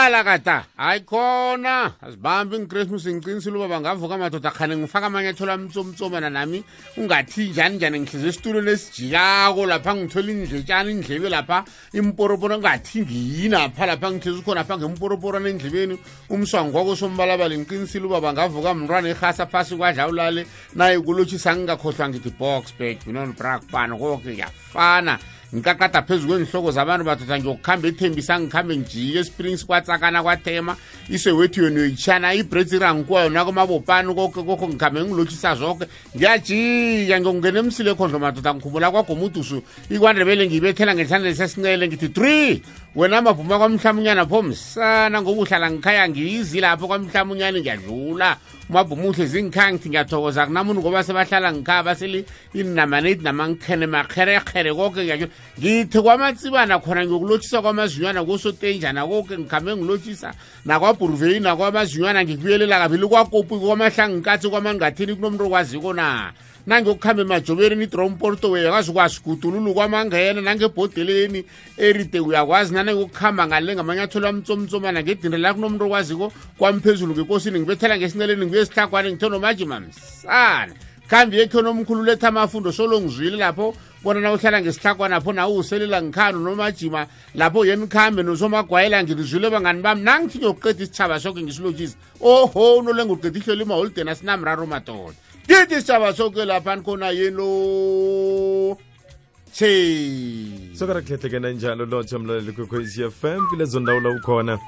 Qala kata ayikhona asibambi ngeChristmas ngiqinisile uba bangavuka madoda khane ngifaka amanyathelo amtsomtsomana nami ungathi njani ngihlize isitulo lesijikako lapha ngithola indletshana indlebe lapha imporoporo ngathi ngiyina pha lapha ngihlize khona lapha ngemporoporo nendlebeni umswango kwako sombalabala ngiqinisile uba bangavuka mntwana ehasa phasi kwadla ulale naye kulotshisa ngingakhohlwa ngithi box bag binon brak pan konke yafana ngikaqada phezu kwenhloko zabantu badoda ngiyokukhamba ethembisa ngikhambe ngijike Springs kwatsakana kwathema isewethu yona uyichana ibreadsirang kwayo nakomabopani kokho ngikhambe ngilotshisa zonke ngiyajika ngiyongena emsile khondlo madoda ngikhumbula kwagomudusu ikwandebele ngiyibethela ngesandla sesincele ngithi 3 wena mabhuma kwamhlamunyana pho msana ngoba uhlala ngikhaya ngiyizi lapho kwamhlamunyana ngiyadlula mabhumuhle zingikhaya ngithi ngiyathokoza kunamuntu ngoba sebahlala ngikhaya baseli inamanate namankhene makherekhere konke ngithi kwamatsibana khona ngiyokulotshisa kwamazinywana kosotenjana konke ngikhambe ngilotshisa nakwabhuruveli nakwamazinywana ngikuyelela kabili kwakopu kwamahlanginkathi kwamangathini kunomuntu okwaziko na nangiyokukhamba emajobereni iDromporto uyakwazi ukwasigudululu kwamangena nangebhodeleni eride uyakwazi nangiyokukhamba ngale ngamanyathelo amtsomtsomana ngedindre la kunomuntu okwaziko kwamphezulu ngekosini ngibethela ngesinceleni ngibuye esihlakwane ngithono majima msana khambi yekho nomkhulu letha amafundo solo ngizwile lapho bona na uhlala ngesihlakwana pho nawe uselela ngikhano nomajima lapho yeni khambe nosomagwayela ngizwile bangani bami nangithi ngiyokuqeda isithaba sonke ngisilotshisa oho nolenga uqeda ihlelo imaholden asinamraro madoda ngithi isithaba sonke lapha khona yeno sokarakhehlekena njalo lotsha mlaleli kwekwezi FM kulezo ndawo la ukhona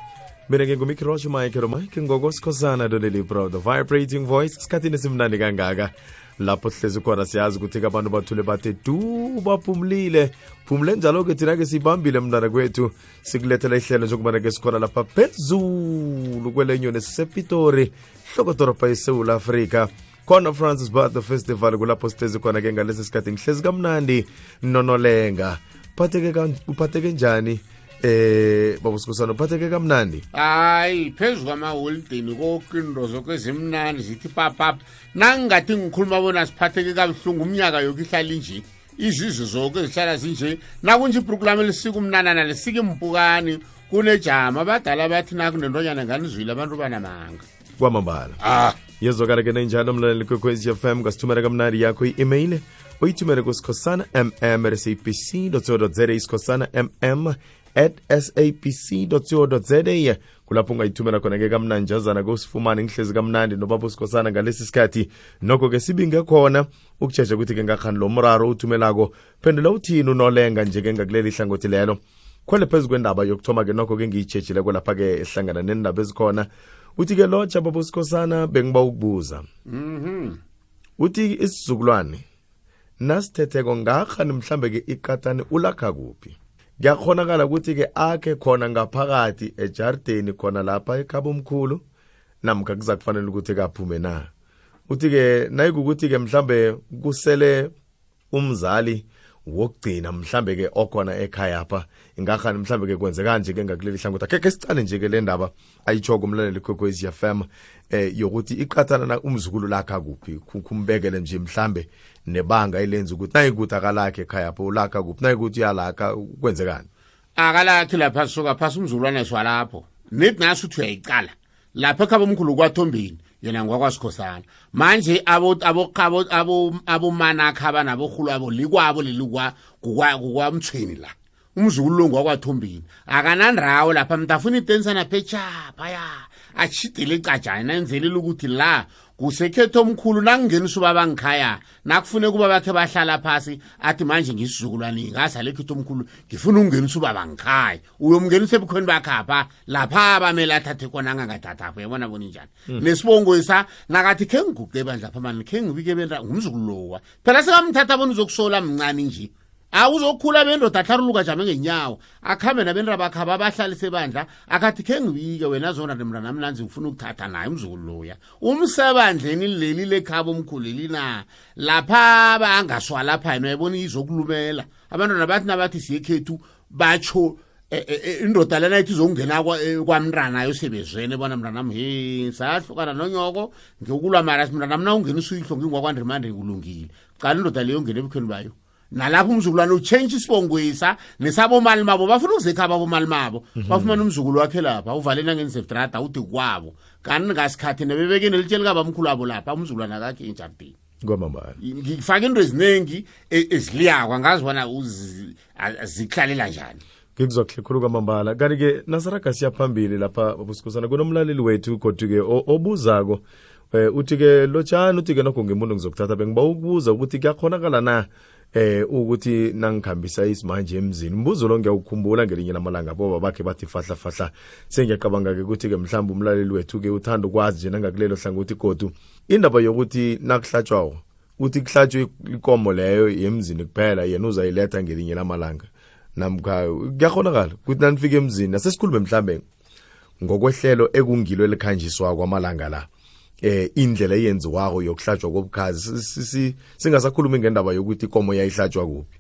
mina ngingumikirosho mike ngokosikhosana doleli proud the vibrating voice isikhathini esimnandi kangaka lapho sihlezi khona siyazi ukuthi abantu bathule bathe du baphumlile phumule njalo-ke thina-ke sibambile mntana kwethu sikulethela ihlelo njengobana-ke sikhona lapha phezulu kwelenyoni sisepitori hlokodorobha esewula afrika khona Francis Butler Festival kulapho sihlezi khona-ke ngalesi sikhathi ngihlezi kamnandi nonolenga uphatheke njani babusikhosana uphatheke kamnandi hayi phezu kwamaholideni kokinto zokwezimnandi zithi papapa nangingathi ngikhuluma bona siphatheke kabuhlungu umnyaka yoke ihlala inje izizwe zoke zihlala zinje nakunje iprogram elisika umnanana lesika impukani kunejama abadala bathi nakunentonyana nganizwile abantu banamanga kwamambala yezwakala-ke nenjalo mlaleli kwekwezi FM ngasithumela kamnandi yakho i-email uyithumele kusikhosana mm@sabc.co.za isikhosana mm@sabc.co.za kulapho ungayithumela khona-ke kamnanjazana kusifumane ngihlezi kamnandi nobaba usikhosana ngalesi sikhathi nokho-ke sibinge khona ukutsheja ukuthi-ke ngakhani lo mraro uthumelako phendula uthini unolenga nje-ke ngakuleli hlangothi lelo khwele phezu kwendaba yokuthoma-ke nokho-ke ngiyitshejileko lapha-ke ehlangana nendaba ezikhona uthi-ke lotsha baba usikhosana bengiba ukubuza uthi isizukulwane nasithetheko ngakhani mhlambe-ke iqatani ulakha kuphi kuyakhonakala ukuthi-ke akhe khona ngaphakathi ejardeni khona lapha ekhaba omkhulu namkha kuza kufanele ukuthi kaphume na uthi-ke nayikukuthi-ke mhlambe kusele umzali wokugcina mhlambe-ke okhona ekhaya apha ingakhani mhlambe-ke kwenze kanje-ke ngakuleli hlangothi akekhe sicale nje-ke le ndaba ayitshoko umlaleli kwekwezi FM yokuthi iqathana na umzukulu lakha kuphi kumbekele nje mhlambe nebanga elenza ukuthi nayikuthi akalakhe ekhaya apho ulakha kuphi nayikuthi uyalakha kwenzekani akalakhi lapha soka phasi umzulwane swalapho nithi nasi uthi uyayicala lapha ekhaba omkhulu kwathombeni yena ngwakwasikhosana manje abomanakha abanabohulu abo likwabo lelikwa kukwamthweni la umzukulu lo ngwakwathombeni akanandrawo lapha mntafuna itensana phechapha ya achidele icajana nenzelela ukuthi la kusekhetho omkhulu nangingenisa ubaba ngikhaya nakufune kuba bakhe bahlala phasi athi manje ngisizukulwane ngasa lekhetho omkhulu ngifuna ukungenisa ubaba ngikhaya uyomngenisa ebukhweni bakhapha lapha abamela athathe kona angangathathapho yabona bona njani nesibongo isa nakathi khe ngiguqe bandla lapha manje khe ngibike benda ngumzukulu lowa phela sekamthatha bona uzokusola mncane nje awuzokhula bendoda atharuluka jame ngenyawo akhambe nabendra bakhaba abahlalise bandla akathi khe ngibike wena zona nemntana namnanzi ngifuna ukuthatha naye umzukulu loya umsebandleni leli lekhaba omkhuleli na lapha bangaswa lapha yena yabona izokulumela abantwana bathi nabathi siyekhethu batsho indoda lena ithi izongena kwamntana yosebezwene bona mntana he sahlukana nonyoko ngiyokulwa mara mntana mna ungena usuyihlo ngingwakwandrimande kulungile qala indoda leyo ngene ebukhweni bayo nalapho umzukulwane uchange isibongwisa nesabo mali mabo bafuna ukuzekhaba abomali mabo bafumana umzukulu wakhe lapha uvalena ngensedrada uthi kwabo kanti ngasikhathi nebebeke nelitsheli kabamkhulu wabo lapha umzukulwane akakhe enjardini kwamambala ngifaka into eziningi eziliyakwa ngazibona ziklalela njani ngikuzwa khulu kwamambala kanti-ke nasaraga siyaphambili lapha babusikhosana kunomlaleli wethu kodwa-ke obuzako uthi-ke lotshani uthi-ke nokho ngemuntu ngizokuthatha bengiba ukubuza ukuthi kuyakhonakala na ukuthi nangikhambisa isimanje emzini umbuzo lo ngiyawukhumbula ngelinye lamalanga boba bakhe bathi fahla sengiyacabanga-ke ukuthi-ke mhlawumbe umlaleli wethu-ke uthanda ukwazi nje nangakulelo hlangothi godu indaba yokuthi nakuhlatshwawo uthi kuhlatshwe ikomo leyo yemzini kuphela yena uzayiletha ngelinye lamalanga namkha kuyakhonakala ukuthi nanifika emzini asesikhulume mhlambe ngokwehlelo ekungilo elikhanjiswa kwamalanga la indlela eyenziwako yokuhlatshwa kobukhazi singasakhulumi ngendaba yokuthi ikomo yayihlatshwa kuphi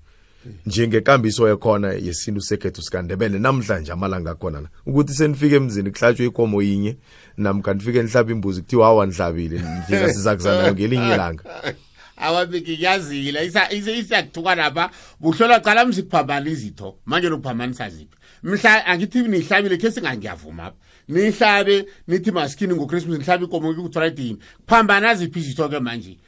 njengekambiso yakhona yesintu sekhethu sikandebele namhlanje amalanga akhona la ukuthi senifike emzini kuhlatshwe ikomo yinye namkha nifike nihlaba imbuzi kuthiwa hawa nihlabile nifika sizakuzanayo ngelinye ilanga awabiki yazile isiyakuthuka lapha buhlola qala msiphambana izitho manje lokuphambanisa ziphi mhla angithi nihlabile ke singangiyavuma apha nihlabe nithi maskini ngoChristmas nihlabe ikomo ku-Friday kuphambana ziphi izitho ke manje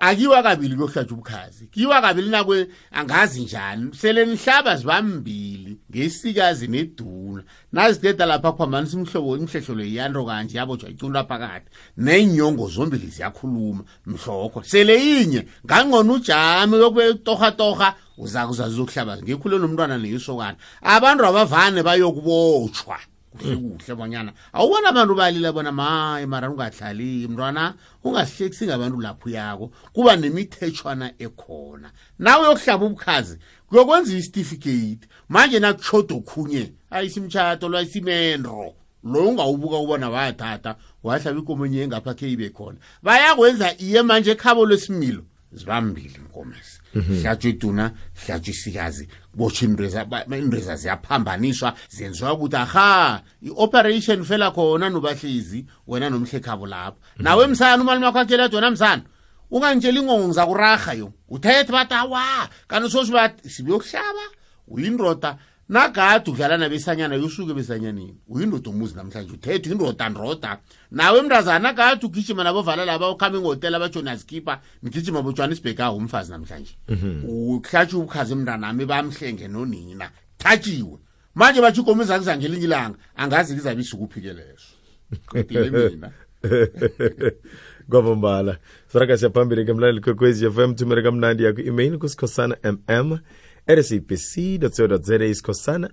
akiwa kabili kuyohlatshwa ubukhazi kiwa kabili nakwe angazi njani sele nihlaba zibambili ngesikazi neduna nazideda lapha phambanisa imhlobo imhlehlolo yando kanje yabotshwa icunda phakathi nenyongo zombili ziyakhuluma mhlokho sele yinye ngangqona ujami yokutoha uzakuzazokuhlaba ngikhule nomntwana neyisokana abantu abavane bayokubotshwa kuhle bonyana awubona abantu balila bona maye mara ungahlali mntwana ungasihlekisi ngabantu lapho yako kuba nemithetshwana ekhona nawe yokuhlaba ubukhazi kuyokwenza isitifikate manje nakuchodo khunye ayisimtshato lwayisimendro lo ungawubuka ubona wathatha wahlaba ikomo enye ngapha ke ibe khona bayakwenza iye manje ekhabo lwesimilo zibambili inkomesi hlatshwa iduna hlatshwa isikazi botsha indreza ziyaphambaniswa zenziwa ukuthi aha i-operation fela khona nobahlizi wena nomhlekhabo lapho nawe msana umalimi wakho akhelethe wena msana ungangitshela ingongo ngizakuraha yo uthethe bathi awa kanti sosi bathi sibuyokuhlaba uyindoda nagade udlala nabesanyana yosuke besanyanini uyindoda umuzi namhlanje uthethe uyindoda ndoda nawe mntazana kade ugijima nabovala laba ukhamba ngehotela abajonaskipa nigijima boJohannesburg umfazi namhlanje uhlatshwa ubukhazi emntanami bamhlenge nonina thathiwe manje bathi ikomo izakuzangelinye ilanga angazi kizabe isukuphi leso qedile mina kwamambala saraga siyaphambili ke mlaleli kwekwezi FM thumela kamnandi yakho email kusikhosana @sabc.co.za isikhosana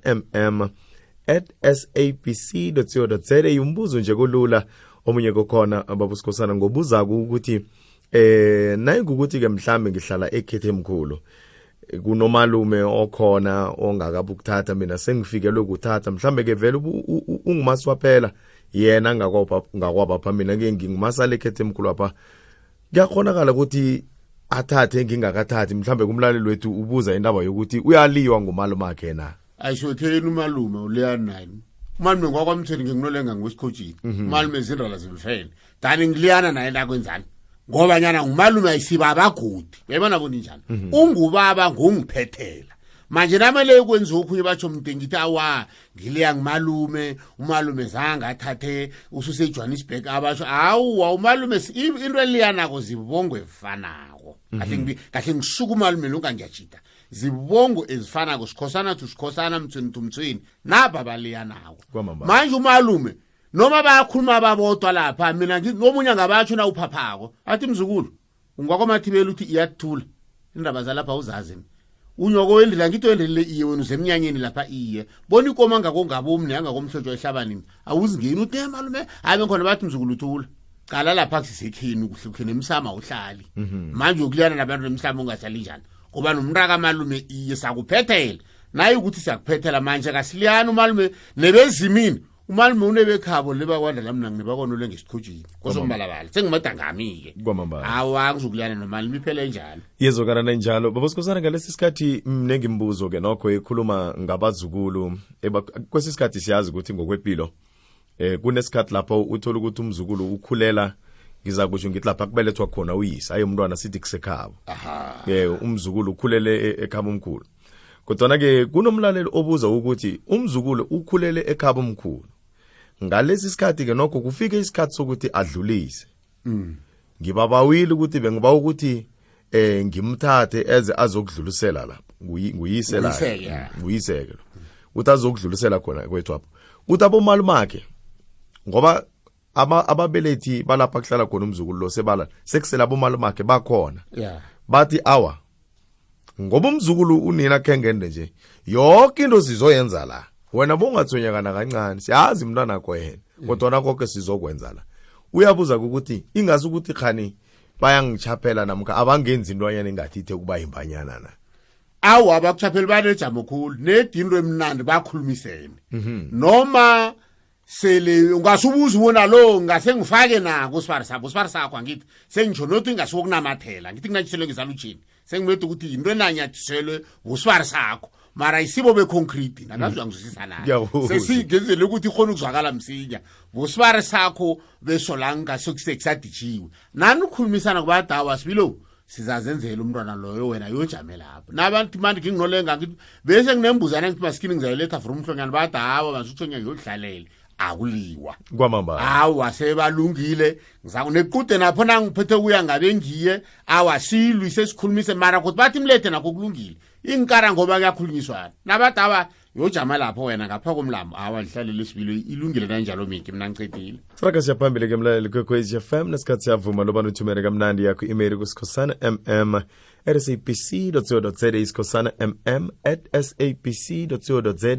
@sabc.co.za umbuzo nje kulula omunye kokhona ababusikhosana ngobuzako ukuthi naye ukuthi ke mhlambe ngihlala ekhethe emkhulu kunomalume okhona ongakabukuthatha mina sengifikelwe ukuthatha mhlambe ke vele ungumaswa phela yena ngakwapha mina ke ngingumasala ekhethe emkhulu apha kuyakhonakala ukuthi athathe ngingakathathi mhlambe kumlaleli wethu ubuza indaba yokuthi uyaliwa ngumalume akhe na ayishotheni umalume uleya nani umalume ngwakwamtheni ngikunolenga ngwesikhothini umalume zindala zimfele dani ngiliyana naye nakwenzani ngoba nyana ngumalume ayisiba abagodi uyabona bona njani ungubaba ngongiphethela manje namele ukwenza okhunye batsho mntengithi awa ngiliya ngumalume umalume zanga athathe ususe eJohannesburg abasho awu umalume into eliyanako zibongo efanako kahle ngisuka umalume lonke ngiyajida zibongo ezifanako sikhosana tusikhosana mthweni naba baliyanako manje umalume noma bayakhuluma ababodwa lapha mina nomunye ngabatsho na uphaphako athi mzukulu ungwakwamathibela uthi iyathula indaba zalapha uzazini unyoko wendlela ngito wendele iye wena uzemnyanyeni lapha iye bona ikoma ngakongabomni yangakomhlotshwa ehlabanini awuzingeni uthi malume habe khona bathi mzukulu uthula qala lapha kusisekhini ukuhlukhene emsama uhlali manje ukuliyana nabantu emhlaba ungahlali njani ngoba nomraka malume iye sakuphethela naye ukuthi siyakuphethela manje kasiliyana umalume nebezimini umalume unebekhabo lebakwanda lamna ngibakonole ngesikhojini kosombalabala sengimadangami-ke awa ngizokuliyana nomalume iphele njalo yezokana njalo babosikhosana ngalesi sikhathi mnengi imbuzo-ke nokho ekhuluma ngabazukulu kwesi sikhathi siyazi ukuthi ngokwempilo kunesikhathi lapho uthola ukuthi umzukulu ukhulela ngiza kusho ngithi lapha kubelethwa khona uyise aye umntwana sithi kusekhabo aha umzukulu ukhulele ekhaba omkhulu kodwa ke kunomlaleli obuza ukuthi umzukulu ukhulele ekhaba omkhulu ngalesi sikhathi ke nokho kufike isikhathi sokuthi adlulise ngibabawile ukuthi bengiba ukuthi ngimthathe eze azokudlulisela lapha nguyise la nguyiseke uthi azokudlulisela khona kwethu apho uthi abomalumakhe ngoba ababelethi balapha kuhlala khona umzukulu lo sebala sekusela abomalumakhe bakhona bathi awa ngoba umzukulu unina khengende nje yonke into sizoyenza la wena bongathonyakana kancane siyazi umntwana wakho yena kodwa nakho sizokwenza la uyabuza ukuthi ingazi ukuthi khani bayangichaphela namka abangenzi intwanyana engathi ithe kuba imbanyana na awu abakuchaphela banejamo khulu nedinto emnandi bakhulumisene noma sele ungasubuza ubona lo ngase ngifake nako usifari sakho angithi sengisho nothi ngasukunamathela ngithi nginatshelwe ngizalutshini sengimethe ukuthi into enanyathiselwe usifari sakho mara isibo beconcrete nakazwa ngizwisisa nayo sesingenzele ukuthi ikhona ukuzwakala msinya usifari sakho besolanga sokusekusadijiwe nani ukukhulumisana kubadawa sibilo sizazenzela umntwana loyo wena yojame lapho nabantu manje nginolenga ngithi bese nginembuzana ngithi maskini ngizayiletha from umhlonyana badawa bazuthonya yodlalele akuliwa kwamamba awa sebalungile ngizakunequde napho nangiphethe kuya ngabe ngiye awasilwi sesikhulumise mara ukuthi bathi imlethe nakho kulungile inkara ngoba kuyakhulunyiswana nabadawa yojama lapho wena ngapha komlambo awalihlalela isibilo ilungile kanjalo miki mina ngicedile siraka siyaphambili ke mlaleli kwekwezi FM nesikhathi siyavuma loba uthumele kamnandi yakho email kusikhosana mm@sabc.co.za isikhosana mm@sabc.co.za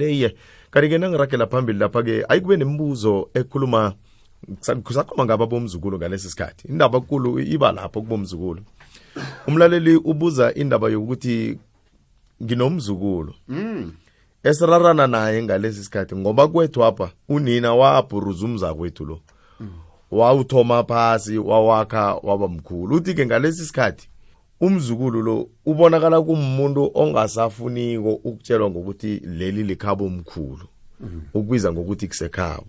kanti-ke nangirakela phambili lapha-ke ayikube nemibuzo ekhuluma kusakhuluma ngaba bomzukulu ngalesi sikhathi indaba enkulu iba lapho kubomzukulu umlaleli ubuza indaba yokuthi nginomzukulu esirarana naye ngalesi sikhathi ngoba kwethu apha unina wabhuruza umzakwethu lo wawuthoma phasi wawakha waba mkhulu uthi-ke ngalesi sikhathi umzukulu lo ubonakala kumuntu ongasafuniko ukutshelwa ngokuthi leli likhabo omkhulu ukubiza ngokuthi kusekhabo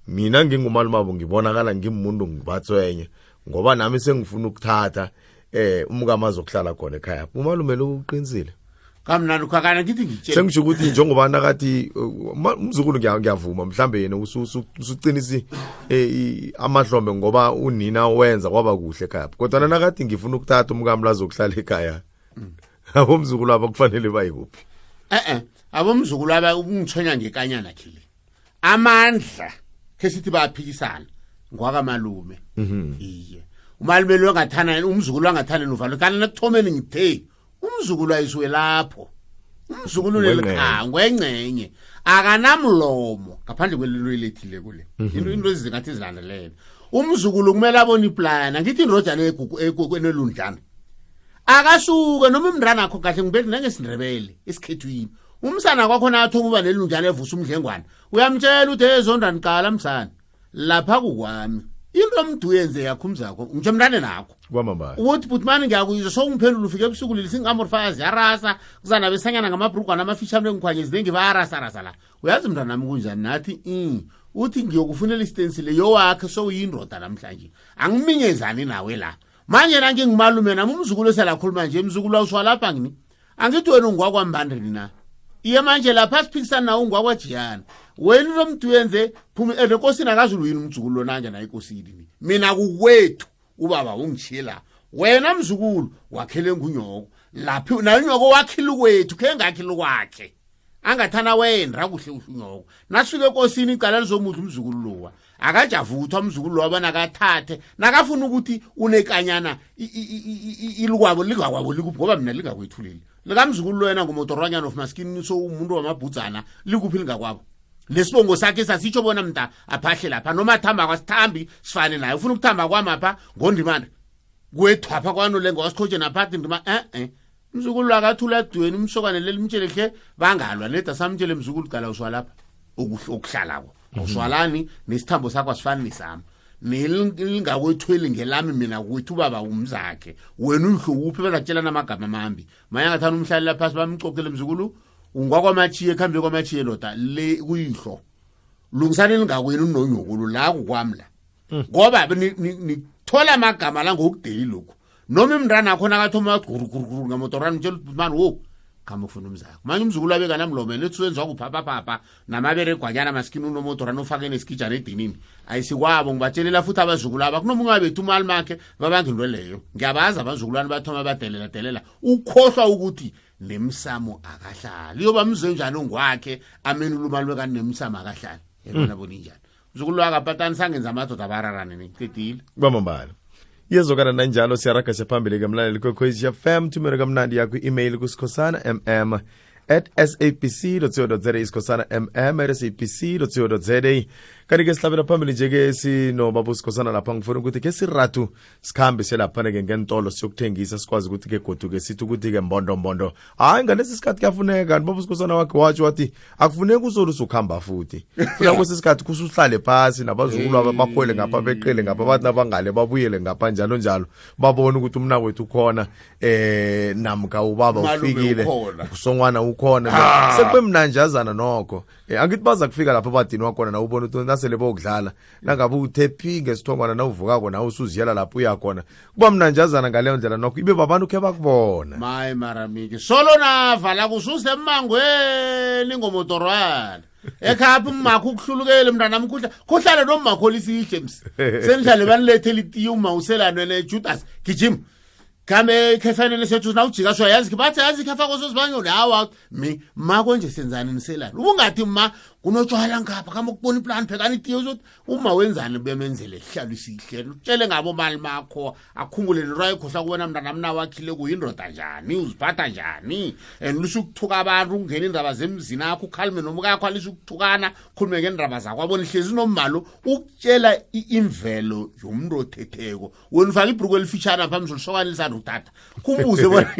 mina ngingumalumabo ngibonakala ngimuntu ngibatswenye ngoba nami sengifuna ukuthatha umkama azokuhlala khona ekhaya umalume lo uqinisile kamnandi ukhakana ngithi ngitshela sengisho ukuthi njengoba nakathi umzukulu ngiyavuma mhlambe yena usuqinisi amahlombe ngoba unina wenza kwaba kuhle ekhaya kodwa nakathi ngifuna ukuthatha umkami lazokuhlala ekhaya abomzukulu aba kufanele bayikuphi abomzukulu aba ungithonya ngekanyana khile amandla kesithi bayaphikisana ngwakamalume iye umalume lo ngathana umzukulu angathana novalo kana nakuthomeni ngithe umzukulu ayisuwe lapho umzukulu lelikhango engcenye akanamlomo ngaphandle kwelilo elethile kule into ezingathi zilandelene umzukulu kumele abone iplana ngithi inrojana enelundlana akasuke noma umndana akho kahle ngibethi nangesindrebele esikhethwini umsana kwakho nathi ukuba nelundlana evusa umdlengwana uyamtshela uthi ezondani qala msana lapha kukwami into omduyenze yakho umzakho ngitsho mntane nakho kwamambala uthi butmani ngiyakuyizwa sokungiphendula ufike ebusuku leli singamorfazi yarasa kuzana besanyana ngamabhrugwana amafishane engikhwanye ziningi bayarasa la uyazi mntana nami kunjani nathi uthi ngiyokufunela isitensile yowakhe sowuyindoda namhlanje angiminyezani nawe la manje nangingimalume nami umzukulu eselakhuluma nje umzukulu awuswalapha ngini angithi wena ungwakwambandrini na iye manje lapha siphikisana nawo ungwakwajiyana wena lo mntu yenze phuma enkosini akazulu yini umzukulu lonanja na inkosini mina kukwethu ubaba ungishila wena mzukulu wakhele ngunyoko laphi na unyoko wakhile kwethu ke ngakhile kwakhe angathana wena kuhle unyoko nasifike enkosini icala lizomuthi umzukulu lowa akajavuthwa umzukulu lowa banakathathe nakafuna ukuthi unekanyana ilikwabo lingakwabo likuphi ngoba mina lingakwethulile likamzukulu lo yena ngumotoranyana of maskini so umuntu wamabhudzana likuphi lingakwabo lesibongo sakhe sasitsho bona mnta aphahle lapha noma thamba kwasithambi sifane naye ufuna ukuthamba kwamapha ngondimana kwethwapha kwanolengo wasikhoje naphathi ndima mzukulu akathula dweni umsokane lelimtshele khe bangalwa leda samtshele mzukulu qala uswalapha ukuhlalako uswalani nesithambo sakho asifani nesami nelingakwethweli ngelami mina kwethu baba umzakhe wena uhluphi bazatshelana amagama amambi manje ngathana umhlali lapha bamcokele mzukulu ungwakwamachiye ekhambe kwamachiye loda le kuyihlo lungisane lingakwenu nonyokulu la kukwamla ngoba thola amagama la ngokudeli lokhu noma imndana akho nakathoma guruguru ngamotorana mtshela mani wo kama ufuna umzakho manje umzukulu abeka namlomeni etsenzwa kuphapha namabere gwanyana maskini unomotorana ufake nesikijana edinini ayisikwabo ngibatshelela futhi abazukulu aba kunomunye bethu imali makhe babangilwe leyo ngiyabaza abazukulwana bathoma badelela ukhohlwa ukuthi nemsamo akahlali yoba mze njani ongwakhe amenula imali wekani nemsamo akahlali yena boni njani umzukulu wakapatani sangenza amadoda abararane niqedile kwamambala yezokana nanjalo siyaraga sephambili kamlaleli kwekhwezi FM thumela kamnandi yakho i-email kusikhosana@sabc.co.za isikhosana@sabc.co.za kanti-ke sihlabela phambili nje-ke sinobaba usikhosana lapha ngifuna ukuthi ke siratu sikhambe selaphana-ke ngentolo siyokuthengisa sikwazi ukuthi-ke goduke sithi ukuthi-ke mbondombondo hayi ngalesi sikhathi kuyafuneka kanti baba usikhosana wakhe watsho wathi akufuneki uzolusa ukuhamba futhi funa kwesi sikhathi kusuhlale phasi nabazukulu aba bakhwele ngapha beqele ngapha bathi nabangale babuyele ngapha njalo njalo babone ukuthi umna wethu ukhona namka ubaba ufikile usongwana ukhona sekube mnanjazana nokho angithi baza kufika lapha badini wakhona na ubona ukuthi nasele bokudlala nangabe uthephi ngesithongwana na uvukako na usuziyela lapho uyakhona kuba mnanjazana ngaleyo ndlela nokho ibe babantu khe bakubona maye maramiki solo navala kususe emangweni ngomotorwana ekhapha umakho ukuhlulukele mntana kuhlale nomakho lisihle msi senihlale banilethela itiye uma uselano nejudas gijima kame kefanele sethu na ujika sho yazi bathi yazi khafa kosozibanyoni hawa ma konje senzani niselana ubungathi ma kunotshwala ngapha kama ukubona iplan phekani itiye uzothi uma wenzani bemenzele hlalo isihle utshele ngabo mali makho akhumbule nirayi khohla kubona mntana mna wakhile kuyindoda njani uziphatha njani lusho ukuthuka abantu ungena indaba zemzini akho ukhalime nomukakho alisho ukuthukana khulume ngendaba zakho abona ihlezi nomalo ukutshela imvelo yomuntu othetheko wena ufaka ibhuku elifitshana phambi solisokana lisanda utata kumbuze bona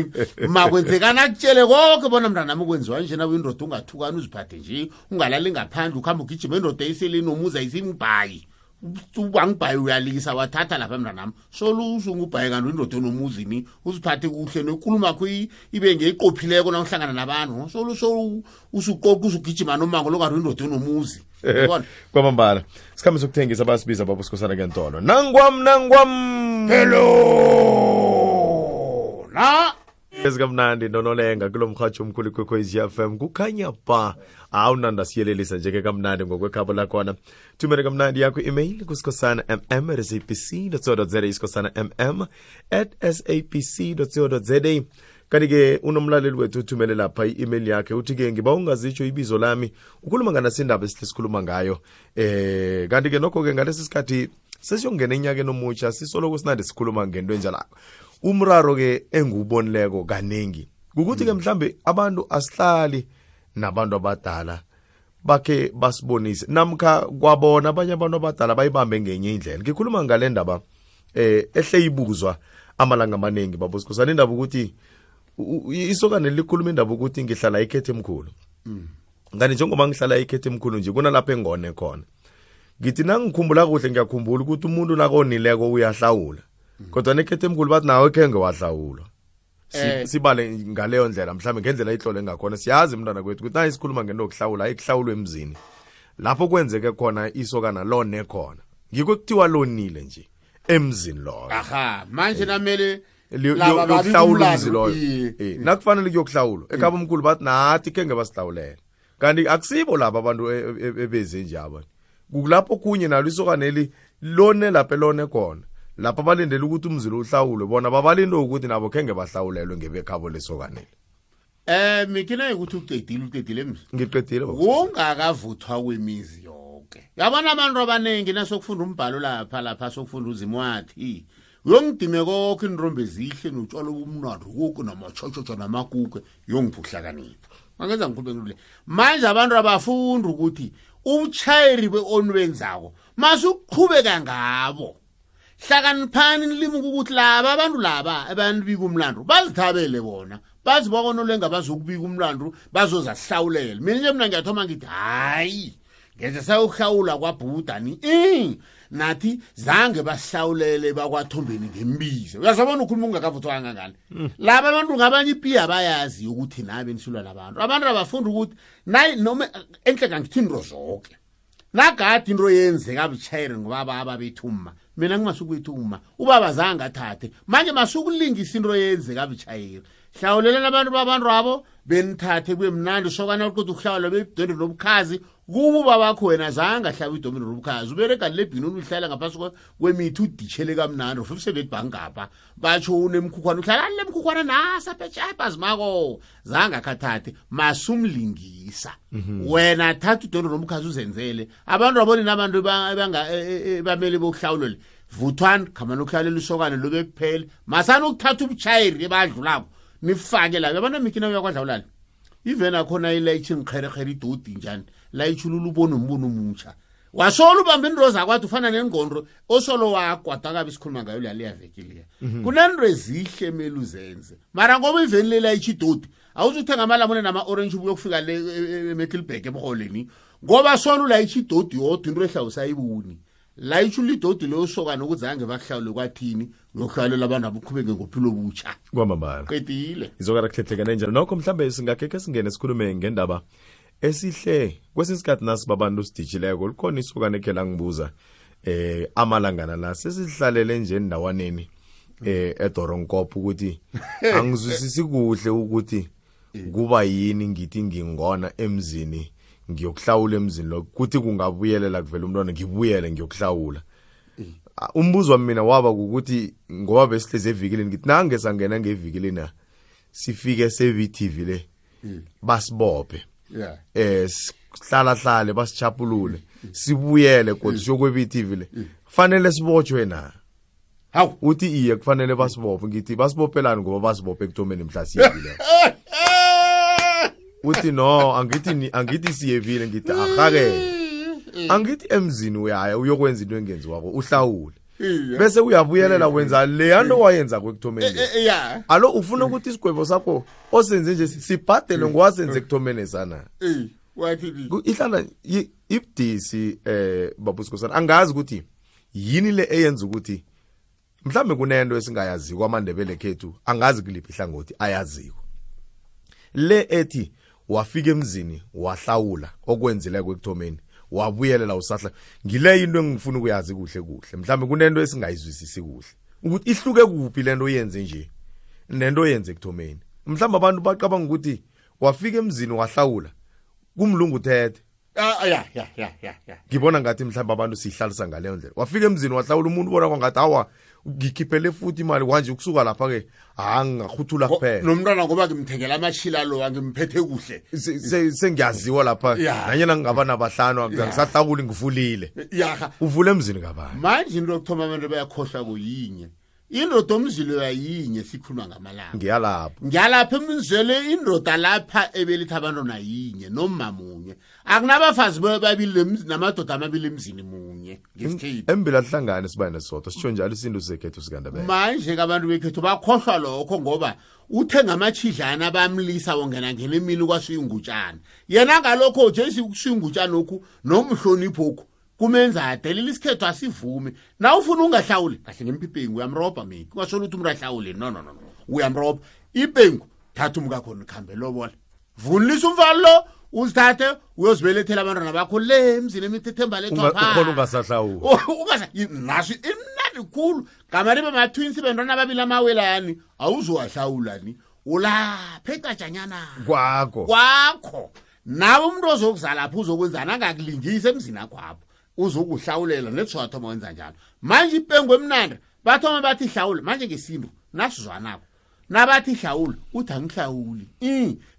makwenzekana kutshele konke bona mntana mukwenziwa nje na windoda ungathukana uziphathe nje ungalali ngaphandle ukhamba ugijima endoda eseleni nomuza isingibhayi ubangibhayi uyalikisa wathatha lapha mntanami solo usungubhayi kanti indoda enomuzini uziphathe kuhle nenkulumo yakho ibe ngeyiqophileko na uhlangana nabantu solo usuqoqa usugijima nomango lokanti indoda enomuzi kwamambala sikhambe sokuthengisa basibiza baba usikhosana kentolo nangwam hello na ezikamnandi nonolenga kulo mhatsho omkhulu kwekhwezi FM kukhanya ba awunanda siyelelisa njeke kamnandi ngokwekhabo lakhona thumela kamnandi yakho email kusikhosana@sabc.co.za isikhosana@sabc.co.za kanti-ke unomlaleli wethu uthumele lapha i-email yakhe uthi-ke ngiba ungazitsho ibizo lami ukhuluma nganasindaba esihle sikhuluma ngayo kanti-ke nokho-ke ngalesi sikhathi sesiyongena enyakeni omutsha sisoloko sinandi sikhuluma ngento enjalako umraro-ke engiwubonileko kaningi kukuthi-ke mhlambe abantu asihlali nabantu abadala bakhe basibonise namkha kwabona abanye abantu abadala bayibambe ngenye indlela ngikhuluma ngale ndaba ehle ibuzwa amalanga amaningi baba usikhosana indaba ukuthi isokane likhuluma indaba ukuthi ngihlala ikhethe emkhulu ngani njengoba ngihlala ikhethe emkhulu nje kunalapho engone khona ngithi nangikhumbula kuhle ngiyakhumbula ukuthi umuntu nakonileko uyahlawula kodwa nekhethe emkhulu bathi nawe khenge wahlawulwa sibale ngaleyo ndlela mhlawumbe ngendlela ihlole ngakhona siyazi mntwana kwethu ukuthi nayi sikhuluma ngento yokuhlawula ayihlawulwe emzini lapho kwenzeke khona isokana lone khona ngikho kuthiwa lonile nje emzini loyo aha manje namele yokuhlawula umzi loyo nakufanele kuyokuhlawulwa ekhaba omkhulu bathi nathi khenge basihlawulela kanti akusibo laba abantu ebeze nje aba kulapho kunye nalo isokaneli lone lapho lone khona lapha balindele ukuthi umzilo uhlawulwe bona babalinde ukuthi nabo khenge bahlawulelwe ngebekhabo lesokaneli mikina ukuthi uqedile emzini ngiqedile ungakavuthwa kwemizi yonke yabona abantu abaningi nasokufunda umbhalo lapha sokufunda uzimo wathi uyongidime konke inrombe ezihle notshwala obumnandi konke namatshotsho namakuke yongiphuhlakanipha angenza ngikhulube manje abantu abafunda ukuthi ubutshayeri beonwenzako masuqhubeka ngabo hlakaniphani nilimuka ukuthi laba abantu laba abantu bika umlando bazithabele bona bazi bakonolenga bazokubika umlando bazozahlawulela mina nje mina ngiyathoma ngithi hayi ngeze sayohlawula kwabhudani nathi zange bahlawulele bakwathombeni ngembizo uyazabona ukhuluma ungakavuthwa kangangani laba abantu ngabanye ipiya bayazi ukuthi nabe nisulwa labantu abantu abafunda ukuthi nayi noma enhle ngangithini rozonke nagadi into yenzeka butshayeri ngobaba ababethuma mina ngimasukwethuma ubaba zange athathe manje masukulingisa into yenzeka butshayeri hlawulelela abantu babantu abo benithathe kube mnandi sokana ukuthi ukuhlawula bebudende nobukhazi kuba babakho wena zange ahlaba idomino nobukhazi uberega lebhinuni uhlala ngaphasi kwemithi uditshele kamnandi ufuse betibhangapha batsho unemkhukhwana uhlala lemkhukhwana nasa phetsha zimako zange akhathathe masumlingisa wena thatha udomino nobukhazi uzenzele abantu aboni nabantu bamele bokuhlawulele vuthwana khamana ukuhlalela isokane lobe kuphela masana ukuthatha ubutshayeri ebadlulako nifake la yabona mikina uyakwadlawulala even akhona ilayitshi ngikherekhere idodi njani layitshulula ubona umbono omutsha wasola ubamba into zakwathi ufana nengqondo osolo wakwada kabe sikhuluma ngayo la liyavekile kunento ezihle emeli uzenze mara ngoba even le layitshi idodi awuzuthenga amalamune nama orange ubuye kufika le eMiddelburg ebuholeni ngoba sona ulayitshi idodi yodwa into ehla usayibuni layitshula idodi leyo sokana ukuzange bakuhlawule kwathini ngokuhlalela abantu abuqhubeke ngophilo obutsha kwamambala qedile izokara kuhlethekane njalo nokho mhlambe singakeke singene sikhulume ngendaba esihle kwesinsikhathi nasi babantu sidijileko likhona isokane ekhe ngibuza amalangana la sesihlalele nje endawaneni eDoronkop ukuthi angizwisisi kuhle ukuthi kuba yini ngithi ngingona emzini ngiyokuhlawula emzini lo kuthi kungabuyelela kuvela umntwana ngibuyele ngiyokuhlawula umbuzo wami mina waba ukuthi ngoba besihleze evikilini ngithi nange sangena ngevikilini sifike se-VTV le basibophe sihlala basichapulule sibuyele kodwa siyokwe-VTV le fanele sibotshwe na hawu uthi iye kufanele basibophe ngithi basibophelani ngoba basibophe ekuthomeni mhlasiyekile uthi no angithi siyevile ngithi ahake angithi emzini uyaya uyokwenza into engenzi wako uhlawule bese uyabuyelela wenza le yanto wayenza kwekuthomeni alo ufuna ukuthi isigwebo sakho osenze nje sibhadele ngwasenze ekuthomeni sana wathi ihlala ibdisi babusikosana angazi ukuthi yini le eyenza ukuthi mhlambe kunento esingayazi kwaMandebele khethu angazi kuliphi ihlangothi ayaziko le ethi wafika emzini wahlawula okwenzile kwekuthomeni wabuyelela usahla ngile into engifuna ukuyazi kuhle mhlambe kunento esingayizwisisi kuhle ukuthi ihluke kuphi lento yenze nje nento yenze ekuthomeni mhlambe abantu baqabanga ukuthi wafika emzini wahlawula kumlungu thethe ya ngibona ngathi mhlambe abantu sihlalisa ngaleyo ndlela wafika emzini wahlawula umuntu ubona kwangathi hawa ngikhiphele futhi imali kwanje ukusuka lapha ke ngakhuthula kuphela nomntwana ngoba ngimthengela amashila lo angimphethe kuhle sengiyaziwa lapha nanyena ngingaba nabahlanu ngisahlawula ngivulile uvule emzini kabani manje into yokuthoma abantu bayakhohlwa kuyinye indoda omzilo yayinye sikhuluma ngamalanga ngiyalapha emzele indoda lapha ebelithi abantwana yinye nomamunye akunabafazi babili namadoda amabili emzini munye ngesithithi embila hlangane sibane sodwa sitsho njalo isinto sekhethu sikandabela manje abantu bekhethu bakhohlwa lokho ngoba uthenga amachidlana bamlisa wongena ngene emini kwasuyingutshana yena ngalokho nje sikusuyingutshana lokhu nomhlonipho okho kumenza adelela isikhethu asivume na ufuna ungahlawuli kahle ngempiphengu uyamroba mina ungasho ukuthi umuntu ahlawule no uyamroba iphengu thatha umkakho nikhambe lobola vunilisa umfalo lo uzithathe uyozibelethela abantwana bakho le emzini emithethemba lethwa ukhona ungasahlawuli naso imnandi khulu gamari bama-twins bentwana ababili amawelani awuzowahlawulani ulapha ecatshanyana kwakho nawe umuntu ozokuzalapha uzokwenzana angakulingisa emzini akwapho uzokuhlawulela netswathoma wenza njalo manje ipengu emnandi bathoma bathi hlawula manje ngesinto nasizwanako nabathi hlawula uthi angihlawuli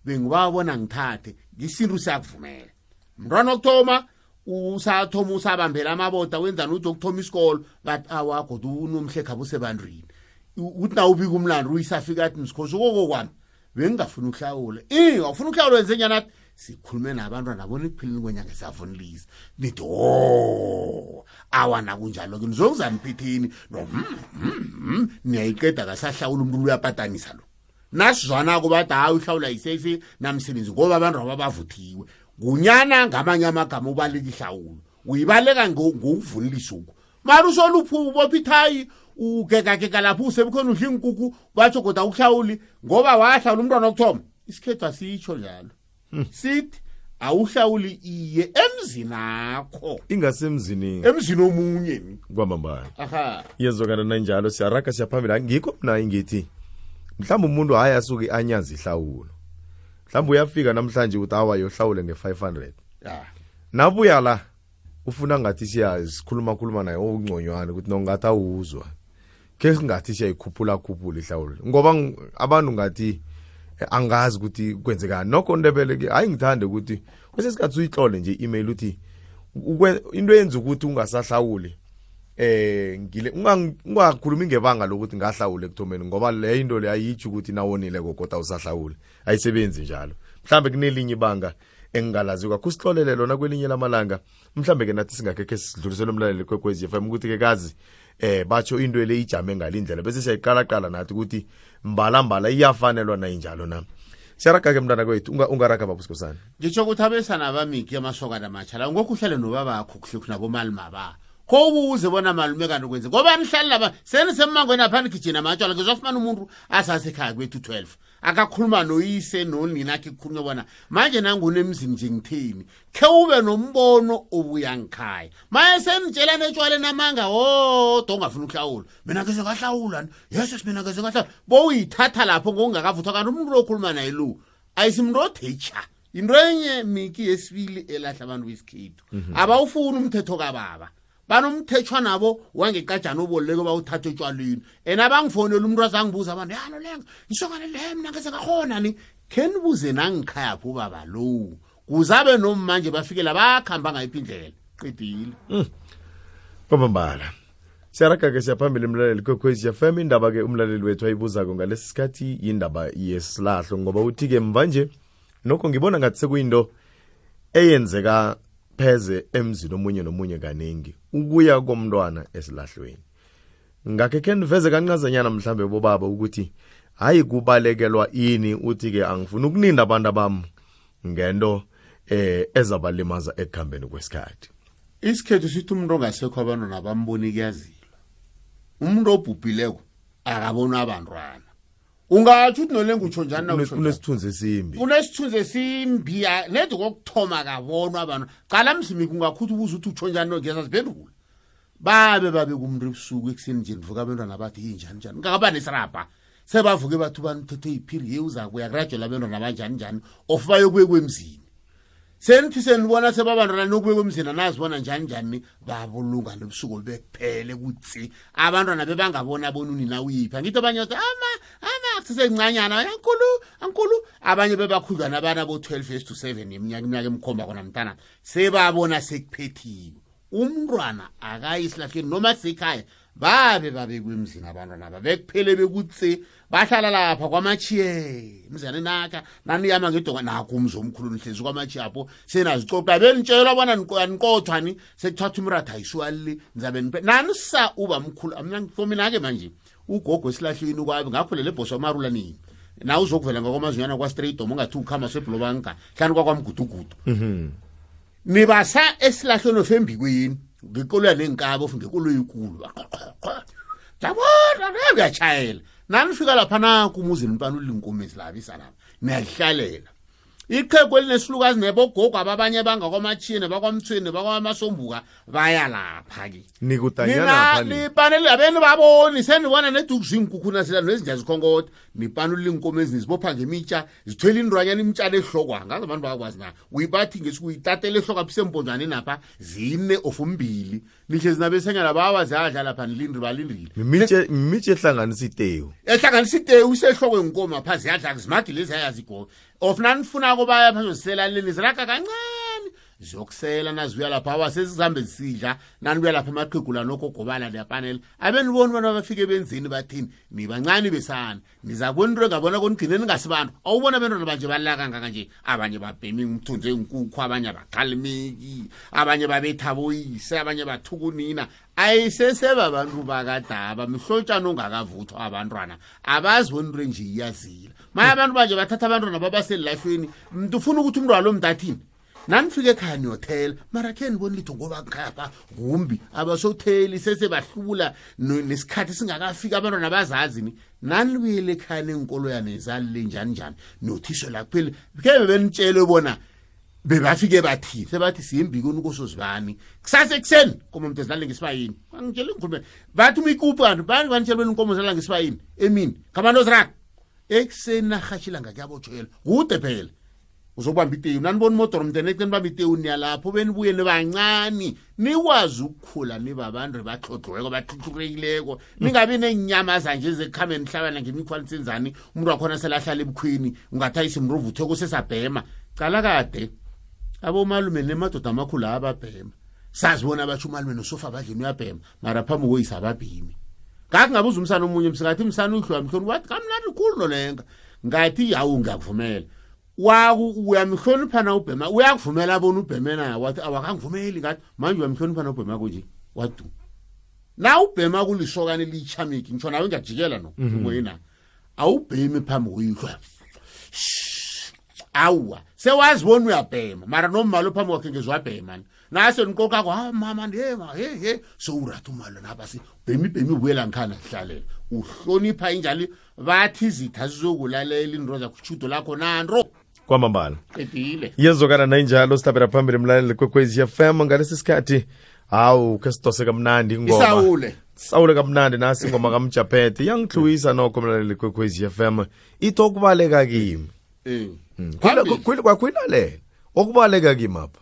bengibabona ngithathe ngesinto siyakuvumela mntwana okuthoma usathoma usabambela amaboda wenzani uthi okuthoma isikolo bathi awakho unomhle khabo sebantwini uthi na ubika umlando uyisafika athi msikhosi kokwami bengingafuna ukuhlawula awufuna ukuhlawula wenze njani athi sikhulume nabantwana nabona ekuphileni kwenyanga esavunilisa nithi awana kunjalo ke nizokuzaniphithini niyayiqeda kasahlawula umuntu uyapatanisa lo nasizwanako bathi hayi uhlawula yisesi namsebenzi ngoba abantu ababavuthiwe kunyana ngamanye amagama ubaleka ihlawulo uyibaleka ngokuvunilisa uko mara usoluphu ubopha ithayi ugekageka lapho usebukhona udla inkukhu batsho kodwa ukuhlawuli ngoba wahlawula umntwana okuthoma isikhethu asitsho njalo sithi awuhlawuli iye emzini akho ingasemzini emzini omunye kwamambala aha yezokana nanjalo siyaraga siyaphambili ngikho mina ngithi mhlawumbe umuntu hayi asuke anyazi ihlawulo mhlawumbe uyafika namhlanje uthi awa yohlawule nge500 nabuya la ufuna ngathi sikhuluma naye ongconywana ukuthi nongathi awuzwa ke ngathi siyayikhuphula ihlawulo ngoba abantu ngathi angazi ukuthi kwenzekani nokho ndebele ke hayi ngithande ukuthi kwesesikhathi uyihlole nje email uthi into yenza ukuthi ungasahlawuli ngile ungakhulumi ngebanga lokuthi ngahlawule ekuthomeni ngoba le into le ayitsho ukuthi nawonile kodwa usahlawule ayisebenzi njalo mhlambe kunelinye ibanga engingalazi kusihlolele lona kwelinye lamalanga mhlambe ke nathi singakekhe sidlulisele umlaleli kwekwezi FM ukuthi ke kazi batsho into le ijame ngalindlela bese siyayiqala nathi ukuthi mbala iyafanelwa na injalo na siyaraga ke mntana kwethu ungaraga babusikosana ngitsho ukuthi abesana bamiki amasokana amatshala ngokuhlale nobabakho kuhle nabo malima ba kobuze bona malume kanti kwenze ngoba nihlali laba senisemangweni aphani kitchen amatshwala ngizofumana umuntu asasekhaya kwethu 12 akakhuluma noyise nonina akhe kukhulunywa bona manje nangunemzini nje ngithini ke ube nombono obuya ngikhaya maye senitshela netshwala namanga ongafuna ukuhlawula mina ngeze ngahlawula yes mina ngeze ngahlawula boyithatha lapho ngokungakavuthwa kanti umuntu lokhuluma naye lo ayisimntu othecha into enye miki yesibili elahla abantu besikhethu abawufuni umthetho kababa banomthethwa nabo wangekajana oboleke bawuthatha etshwaleni abangifonela umuntu azangibuza abantu yalo lenga isokane le mina ngeze ngakhona ni kenibuze nangikhaya pho baba lo kuzabe nomanje bafikela bakhamba ngayiphi indlela qedile kwamambala siyaraga ke siyaphambili umlaleli kwekwezi FM indaba ke umlaleli wethu ayibuzako ngalesi sikhathi indaba yesilahlo ngoba uthi ke mvanje nokho ngibona ngathi sekuyinto eyenzeka pheze emzini omunye nomunye kaningi ukuya komntwana esilahlweni ngakhe niveze kancazanyana mhlambe bobaba ukuthi hayi kubalekelwa ini uthi ke angifuni ukuninda abantu abami ngento ezabalimaza ekuhambeni kwesikhathi isikhethu sithi umuntu ongasekho abantwana bamboni kuyazilwa umuntu obhubhileko akabona abantwana ungathi uthi nolenga utsho njani na unesithunzi esimbi unesithunzi esimbi nedi kokuthoma kabonwa abantu qala mzimi kungakhutha ubuza uthi utsho njani ngeza siphendula babe kumuntu ebusuku ekuseni nje ndivuka abantwana bathi njani ngakaba nesirapha sebavuke bathu banithethe iphiri yeuza kuya graduate abantwana banjani of bayokuye kwemzini senithi senibona sebabantwana nokuye kwemzini nazibona njani babulunga nobusuku bekuphele kutsi abantwana bebangabona bonunina uyipha ngithi abanye bathi sisencanyana ankulu abanye bebakhudlwana abana bo12 to 7 iminyaka emkhomba kona mntana sebabona sekuphethiwe umntwana akayisilahleni noma sekhaya babe kwemzini abantwana babekuphele bekutse bahlala lapha kwamachiye mzane nakha naniyama ngedonga nakho umzo omkhulu nihlezi kwamachiye apho senazicoqa benitshela bona niqothwani sekuthatha umratha ayiswali nizabe nanisa uba mkhulu mina for mina ke manje ugogo esilahlweni kwabi ngakho lele boss wamarula nini na uzokuvela ngokwamazinyana kwa straight dom ungathi ukhama seblobanka hlani kwakwamgudugudu nibasa esilahlweni ofembikweni ngikolo yanenkabo ngikolo yikulu jabona ngiyachayela nanifika lapha na kumuzi nipanula inkomezi labisa lapha niyahlalela iqhegu elinesihlukazi nebogogo ababanye bangakwamachine bakwamthweni bakwamasombuka baya lapha ke nikutanyana lapha nipanele abeni baboni senibona nedukuzingkukhuna sila nezinja zikhongoda nipanula inkomezi nizibopha ngemitsha zithwele indwanyana imtshana ehlokwa ngaze abantu bakwazi na uyibathi ngesikuyitatele ehlokwa phisembonjani napha zine of umbili nihlezi nabesenyana bawazadla lapha nilindri balindrile imithe ehlanganisa itewu isehlokwe inkoma pha ziyadla zimagi lezi ayazigo of nanifuna kubaya pha zoselaleni ziraka kancane zokusela nazibuya lapha awasesihambe zisidla nanibuya lapha amaqhegula nokho gobala lepanel abeniboni bona bafike benzini bathini nibancane besana nizakubona into engabona konigcine ningasibantu awubona abantwana banje balaka kangaka nje abanye babhemi umthunze inkukhu abanye baqhalimeki abanye babetha boyise abanye bathukunina ayiseseba abantu bakadaba mihlotshana ongakavuthwa abantwana abazi bona into nje iyazila maye abantu banje bathatha abantwana babaselifeni umuntu ufuna ukuthi umntwana lo mntathini nanifike ekhaya niyothela mara khe nibona litho ngoba ngikhapha kumbi abasotheli sesebahlula nesikhathi singakafika abantwana bazazi ni nanibuyele ekhaya nenkolo yanezalile njani nothisho la kuphela ke benitshele bona bebafike bathi sebathi siyimbikoni kosozibani kusasa ekseni komo umuntu ezilale ngesibayini angitshela ngikhulume bathi umikupu kanti bani banitshela bena inkomo zilala ngesibayini emini kamando zrak ekseni nahashila ngakuyabotshela kude phela uzobamba iteyu nanibona imotor mntene ekeni bamba iteyu niyalapho benibuye nibancane nikwazi ukukhula nibabantu baxoxweko baxhuxhurekileko ningabi nenyama zanje zekhameni hlabana ngemikhwani senzani umuntu wakhona selahlala ebukhwini ungathayisa imruvuthe kusesabhema cala kade abomalume nemadoda amakhulu ababhema sazibona abatsho umalume nosofa badlini uyabhema mara phambi koyisa ababhimi ngakho ngabuza umsana omunye msikathi umsana uhlwa mhloni wathi kamnandi khulu nolenga ngathi yawu ngiyakuvumela uyamhlonipha na ubhema uyakuvumela abona ubheme naye wathi awakangivumeli ngathi manje uyamhlonipha na ubhema kunje wadu na ubhema kulisokane lichamiki ngitsho nawe ngiyajikela no ngoyina awubhemi phambi koyihlo awa sewazibona uyabhema mara nomalo phambi kwakhe ngezwabhema nase nikoka kwa mama ndema he sowuratha umalo nabasi bhemi ubuyela ngikhana sihlalela uhlonipha injali bathi izitha zizokulalela indro zakuchudo lakho nanro kwamambala edile yezokana nayinjalo sihlabela phambili mlaleli kwekwezi FM ngalesi sikhathi hawu ke sidose kamnandi ingoma sawule kamnandi nasi ingoma kaMjaphethe yangihluwisa nokho mlaleli kwekwezi FM itokubaleka kimi kwakwinalela okubaleka kimi apha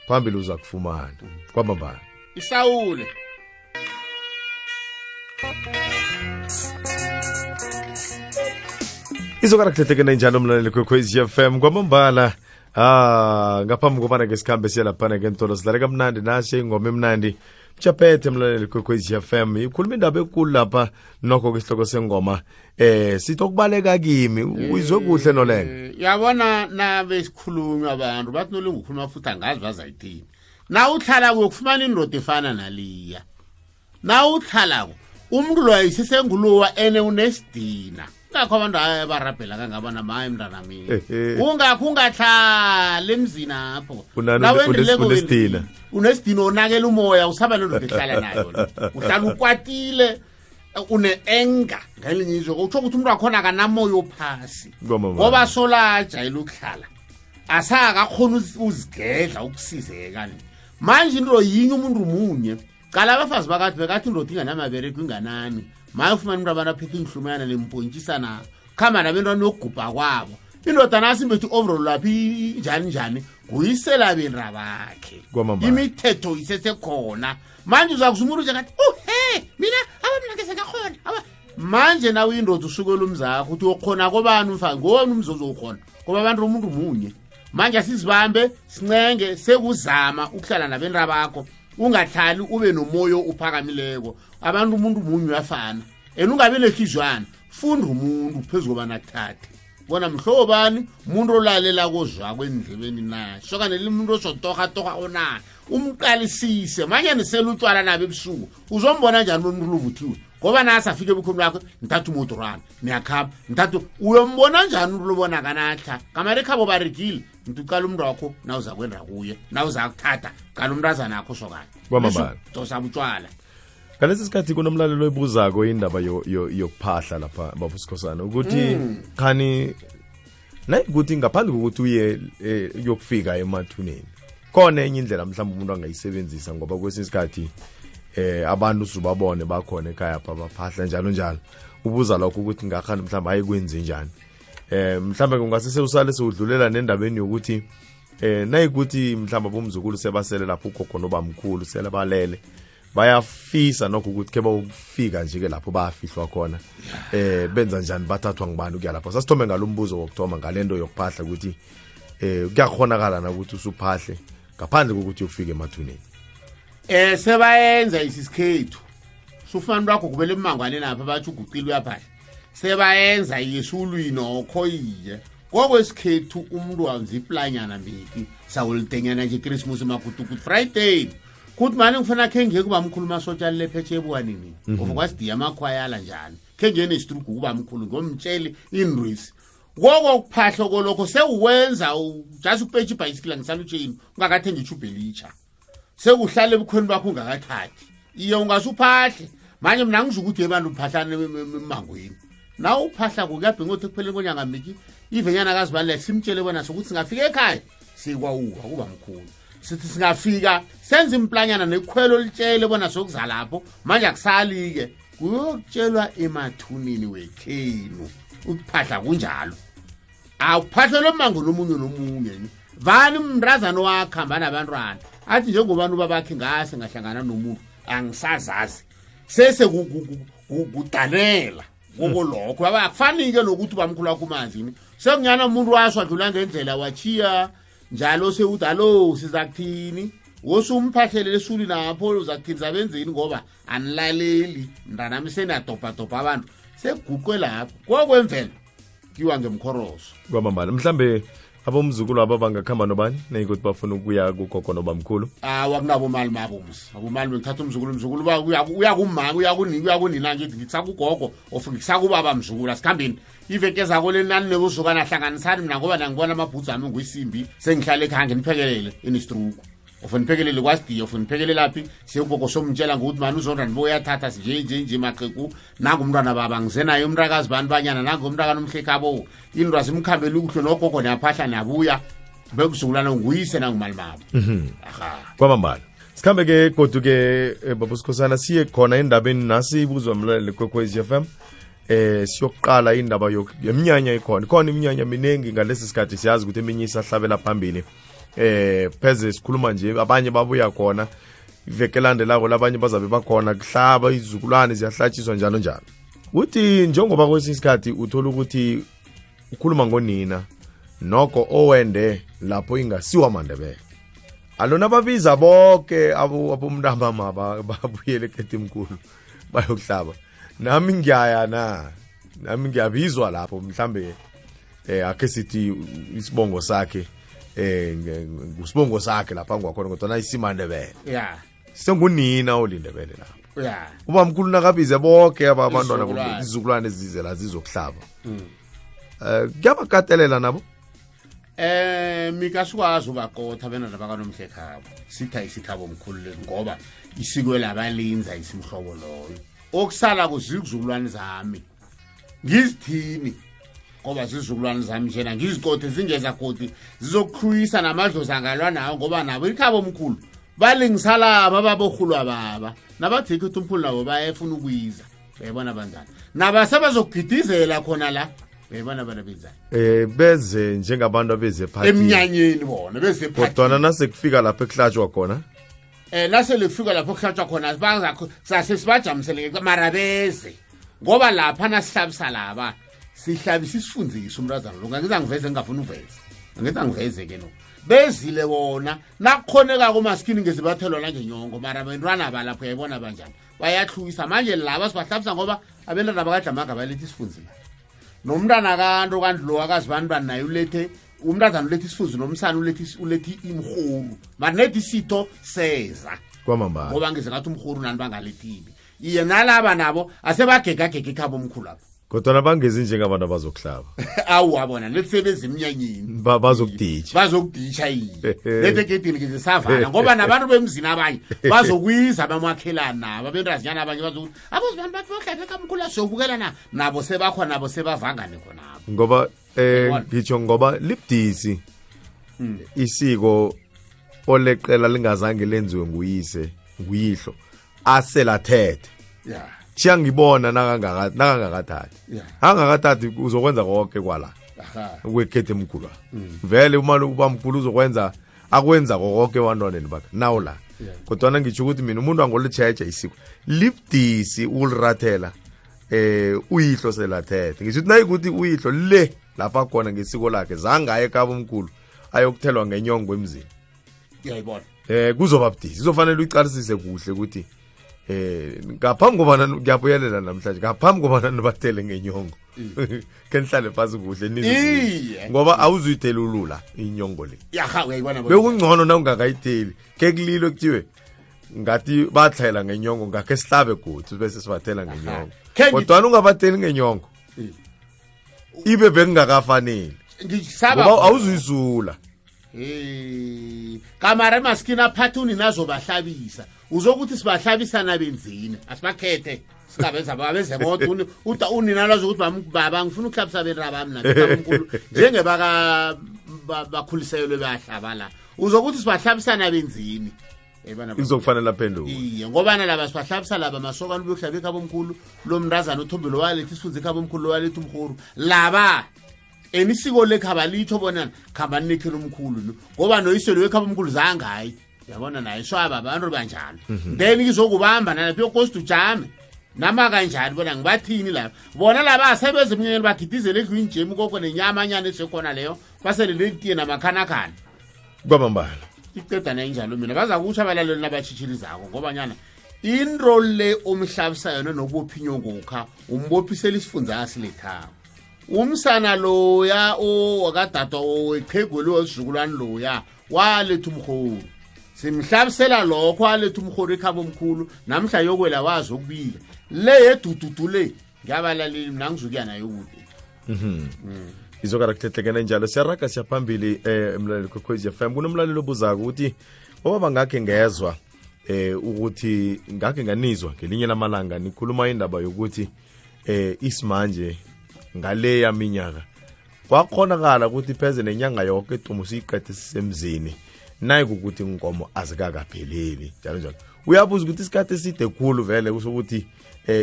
phambili uza kufumana kwamambala isawule izokana kuthethekena njalo mlaleli kwekwezi FM kwamambala ngaphambi kobana ngesikhambe siyalaphana ngentolo sidlale kamnandi nasi ingoma emnandi Mjaphethe mlaleli kwekwezi FM ikhuluma indaba enkulu lapha nokho kwesihloko sengoma sithi okubaleka kimi uyizwe kuhle nolenga yabona nabe sikhulunywa abantu bathi nolenga ukhuluma futhi angazi bazayithini na uhlala kuyokufumana indoda efana naliya na uhlala umuntu lo ayisisengulowa ene unesidina ngakho abantu abarabhela kangabana maye mntana mina ungakho ungahlala emzini apho unesidina unesidina onakela umoya usaba lelo ehlala nayo uhlala ukwatile une-enga ngelinye izwe utsho ukuthi umuntu wakhona akanamoya ophasi ngoba solajayela ukuhlala asakakhona uzigedla ukusizeka manje into yinye umuntu munye qala abafazi bakathi bekathi indoda inganamabereko inganani maye ufumana umuntu abantu aphethe inhlumana lempontshisana khamba nabentwana yokugubha kwabo indoda nasi imbethi overall laphi njani kuyisela benra bakhe imithetho isesekhona manje uzakuza umuntu nje ngathi mina abamnake sekakhona manje nawe indoda usukela umzakho uthi uyokhona kobani umfana ngowona umzozo ukhona ngoba abantu umuntu munye manje asizibambe sincenge sekuzama ukuhlala nabenra bakho ungahlali ube nomoyo uphakamileko abantu umuntu munye uyafana ungabe nehlizwana funda umuntu phezulu banathathe bona mhlobani umuntu olalela kozwa kwendlebeni na sokanele umuntu osotoha ona umqalisise manje nisela utwala nabe ebusuku uzombona njani umuntu luvuthiwe ngoba nasi afike ebukhulu bakho nithatha umotorana niyakhamba nithatha uyombona njani umuntu lobona kanahla kamare khabo baregile ntuqala umuntu wakho na uza kwenda kuye na uza kuthatha qala umntazana akho sokana kwamambala dosa butshwala ngalesi sikhathi kunomlalelo oyibuzako indaba yokuphahla lapha babusikhosana ukuthi khani nayikuthi ngaphandle kokuthi uye yokufika emathuneni khona enye indlela mhlawumbe umuntu angayisebenzisa ngoba kwesinye isikhathi abantu sibabone bakhona ekhaya apha baphahla njalo ubuza lokho ukuthi ngakhani mhlawumbe ayikwenze njani mhlawumbe kungasese usale sewudlulela nendabeni yokuthi nayikuthi mhlawumbe bomzukulu sebasele lapho ukhokho nobamkhulu sele balele bayafisa nokho ukuthi ke bawufika nje ke lapho bayafihlwa khona benza njani bathathwa ngibani ukuya lapho sasithome ngalombuzo wokuthoma ngalendo yokuphahla ukuthi kuyakhonakala na ukuthi usuphahle ngaphandle kokuthi ufike emathuneni sebayenza isisikhethu sufana bakho kubele emangwane lapha bathi uguqile uyaphahla sebayenza yesulwini okhoyiye ngokwesikhethu umuntu wanza iplanyana mbiki sawulitenyana nje Christmas makutu good Friday kuthi manje ngifuna khe ngeke kuba mkhulu masotshali lephetshe ebuwanini ngoba kwasidiya amakhwayala njani khe ngene istrugu kuba mkhulu ngomtsheli indrisi ngoko kuphahla kolokho sewuwenza just upethe ibicycle ngisalutsheni ungakathenga ichubhelicha sekuhlala ebukhweni bakho ungakathathi iyo ungasuphahle manje mina ngizukuthi abantu uphahlane emangweni na uphahla kuyabhinga uthi kuphele konyanga miki ivenyana kazibalile simtshele bona sokuthi singafika ekhaya sikwawuka kuba mkhulu sithi singafika senze implanyana nekhwelo litshele bona sokuza lapho manje akusali-ke kuyokutshelwa emathunini wekhenu ukuphahla kunjalo awuphahlelwe emango nomunye nomunye vani mndrazana wakhamba nabantwana athi njengobani ubabakhe ngase ngahlangana nomuntu angisazazi sese kudanela kokolokho akufanike nokuthi ubamkhulu wakho umanzini sekunyana umuntu washo adlula ngendlela wachiya njalo sewuthi alo siza kuthini wosumphahlele lesuli napho uzakuthini zabenzeni ngoba anilaleli mntanami senadobhadobha abantu seguqwe lapho kokwemvelo kiwa ngemkhoroso kwamambala mhlambe abomzukulu aba bangakhamba nobani neyikuthi bafuna ukuya kugogo nobamkhulu wakunabo mali mabomzi abomali ngithatha umzukulu uya kumama uya kunina ngithi ngitsakugogo ofuna ngisakubaba mzukulu asikhambeni iveke zako lenani nekuzukana hlanganisani mina ngoba nangibona amabhudzu ami nguyisimbi sengihlale ekhaya niphekelele inistruku ofuna niphekelele kwasidiya ofuna niphekelele laphi siyugogo somtshela ngokuthi mani uzondra niboyathatha nje maxeku nangumntwana baba ngizenayo umntakazi bani banyana nangumntaka nomhlekhabo into azimkhambela ukuhle nogogo niyaphahla niyabuya bekuzukulana nguyise nangumali mabo kwamambala sikhambe ke kodwa ke babusikhosana siye khona endabeni nasi ibuzwa mlaleli kwekwezi FM siyokuqala indaba yeminyanya ikhona iminyanya minengi ngalesi sikhathi siyazi ukuthi eminye isahlabela phambili pheze sikhuluma nje abanye babuya khona iveke landelako labanye bazabe bakhona kuhlaba izizukulwane ziyahlatshiswa njalo njalo uthi njengoba kwesinye isikhathi uthola ukuthi ukhuluma ngonina noko owende lapho ingasiwa Mandebele alona babiza bonke abomntama babuyele eKetimkhulu bayokuhlaba nami ngiyabizwa lapho mhlambe ake sithi isibongo sakhe ngusibongo sakhe lapha ngwakhona kodwa isimandebele sengunina olindebele lapho ubamkhulu nakabize bonke abantwana izizukulwane ezize la zizokuhlaba kuyabakatelela nabo mikasukwazi ubaqotha benana bakanomhlekhabo sitha isikhabo omkhulu ngoba isiko labalinza isimhlobo loyo okusala kuzizukulwane zami ngizithini ngoba zizukulwane zami njena ngizikothe zingeza koti zizokhuyisa namadlozi angalwa nawo ngoba nabo ikhabo omkhulu balingisala ababokhulwa baba nabathi ukuthi umkhulu nabo bayefuna ukuyiza uyabona banjani nabasebazogidizela khona la uyabona bana benzani beze njengabantu abeze party emnyanyeni bona beze party kodwa nasekufika lapho ekuhlatshwa khona nase lefika lapho kuhlatshwa khona bazakho sasesibajamisele mara beze ngoba lapha nasihlabisa laba sihlabisa isifundiso umrazana lo ngizangiveze ngingafuna uveze ngizangiveze ke no bezile wona nakukhoneka komaskini ngezibathelwa la ngenyongo mara bentwana balapho yayibona banjani bayahlukisa manje laba sibahlabisa ngoba abentwana bakadlamaga balethi isifundiso nomntana kanto kanti lo akazibani naye ulethe umntazana ulethi isifuzi nomsana ulethi imhuru mara nethi isitho seza kwamambala ngoba ngize ngathi umhuru nani bangalethile iye nalaba nabo asebagegagega ikhabo omkhulu lapho kodwa nabangezi njengabantu abazokuhlaba awu wabona lesebenza emnyanyeni bazokuditsha yini lethe gedini ngizisavala ngoba nabantu bemzini abanye bazokwiza abamakhelana nabo abentazinyana abanye bazokuthi abozibani bathi bahlaphe kamkhulu asiyobukela nabo sebakhona nabo sebavangane khonabo ngoba ngitsho ngoba libudisi isiko oleqela lingazange lenziwe nguyihlo aselathethe chiya ngibona nakangakathathi angakathathi uzokwenza konke kwala kweKetimkhulu vele umali ubamkhulu uzokwenza akwenza konke wantwaneni bakhe nawo la kodwa ngitsho ukuthi mina umuntu angolitsheje isiko libdisi ulirathela uyihlo selathethe ngisho ukuthi nayikuthi uyihlo le lapha khona ngesiko lakhe zangaye eKapa omkhulu ayokuthelwa ngenyongo emzini uyayibona kuzoba budisi izofanele uyiqalisise kuhle ukuthi ngaphambi kobana ngiyabuyelela namhlanje ngaphambi kobana nibathele ngenyongo kenihlale phasi kuhle nizwe ngoba awuzuyithelulula inyongo le uyayibona bekungcono na ungakayitheli ke kulilo kuthiwe ngathi bathela ngenyongo ngakhe sihlabe godi bese sibathela ngenyongo kodwa ungabatheli ngenyongo ibe bekungakafanele ngisaba ngoba awuzuyisula kamara emaskini aphathuni nazo bahlabisa uzokuthi sibahlabisa nabenzini asibakhethe singabenza babeze bodwa unina lazo ukuthi baba ngifuna ukuhlabisa benraba mina ngikhulu njengebaka bakhuliselwe bayahlaba la uzokuthi sibahlabisana benzini izokufanele aphenduke iye ngoba nalaba sibahlabisa laba masokana ubuyokuhlaba ekhaba omkhulu lo mntazana uthombelo walethi isifunze ekhaba omkhulu walethi umkhulu laba enisiko lekhaba litho bona khamba nikhela umkhulu ngoba noyiselo wekhaba omkhulu zangayi yabona naye swaba abantu banjalo then izokubamba nalapho yokost ujame nama kanjani bona ngibathini lapha bona laba asebenza emnyeni bagidizele ekuyinjemu koko nenyama anyane esekhona leyo basele letiye namakhanakana kwamambala iqeda nenjalo mina baza kuthi abalaleli nabatshitshilizako ngoba nyana into le umhlabisa yona nokubophinyo ngokha umbophisela isifunza asilethako umsana loya wakadada oweqhegweli wesizukulwane loya waletha umkhulu simhlabisela lokho waletha umkhulu ekhaba omkhulu namhla yokwela wazi ukubika le yedududu le ngiyabalaleli mina ngizukuya nayo kude izokarakuthethlekena njalo siyaraga siyaphambili emlaleli kwekhwezi FM kunomlaleli obuzako ukuthi obaba ngakhe ngezwa ukuthi ngakhe nganizwa ngelinye lamalanga nikhuluma indaba yokuthi isimanje ngale yaminyaka kwakhonakala ukuthi pheze nenyanga yonke itumo siyiqede sisemzini nayi ukuthi inkomo azikakapheleli njalo njalo uyabuza ukuthi isikhathi eside khulu vele kusokuthi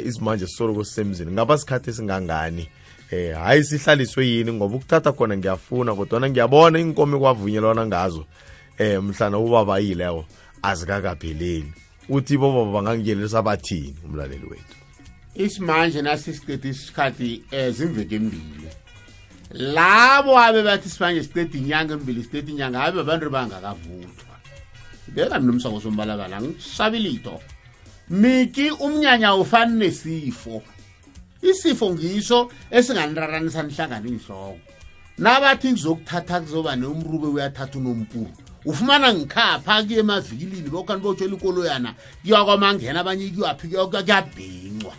isimanje sisoloko sisemzini ngaba sikhathi esingangani hayi sihlaliswe yini ngoba ukuthatha khona ngiyafuna kodwa ngiyabona inkomo kwavunyelwana ngazo mhlana ubaba yilewo azikakapheleli uthi boba bangangiyelisa bathini umlaleli wethu isimanje nasisiqede isikhathi zimveke embili labo abe bathi isimanje siqede inyanga embili siqede inyanga abe abantu bangakavuthwa beka nomsako sombalabala ngisabilito miki umnyanya ufana nesifo isifo ngisho esinganiraranisa nihlangana inhloko nabathi ngizokuthatha kuzoba neumrube uyathatha unompuru ufumana ngikhapha kuye emavikilini bokani botshela ikoloyana kuyakwamangena abanye kuyaphi kuyabhincwa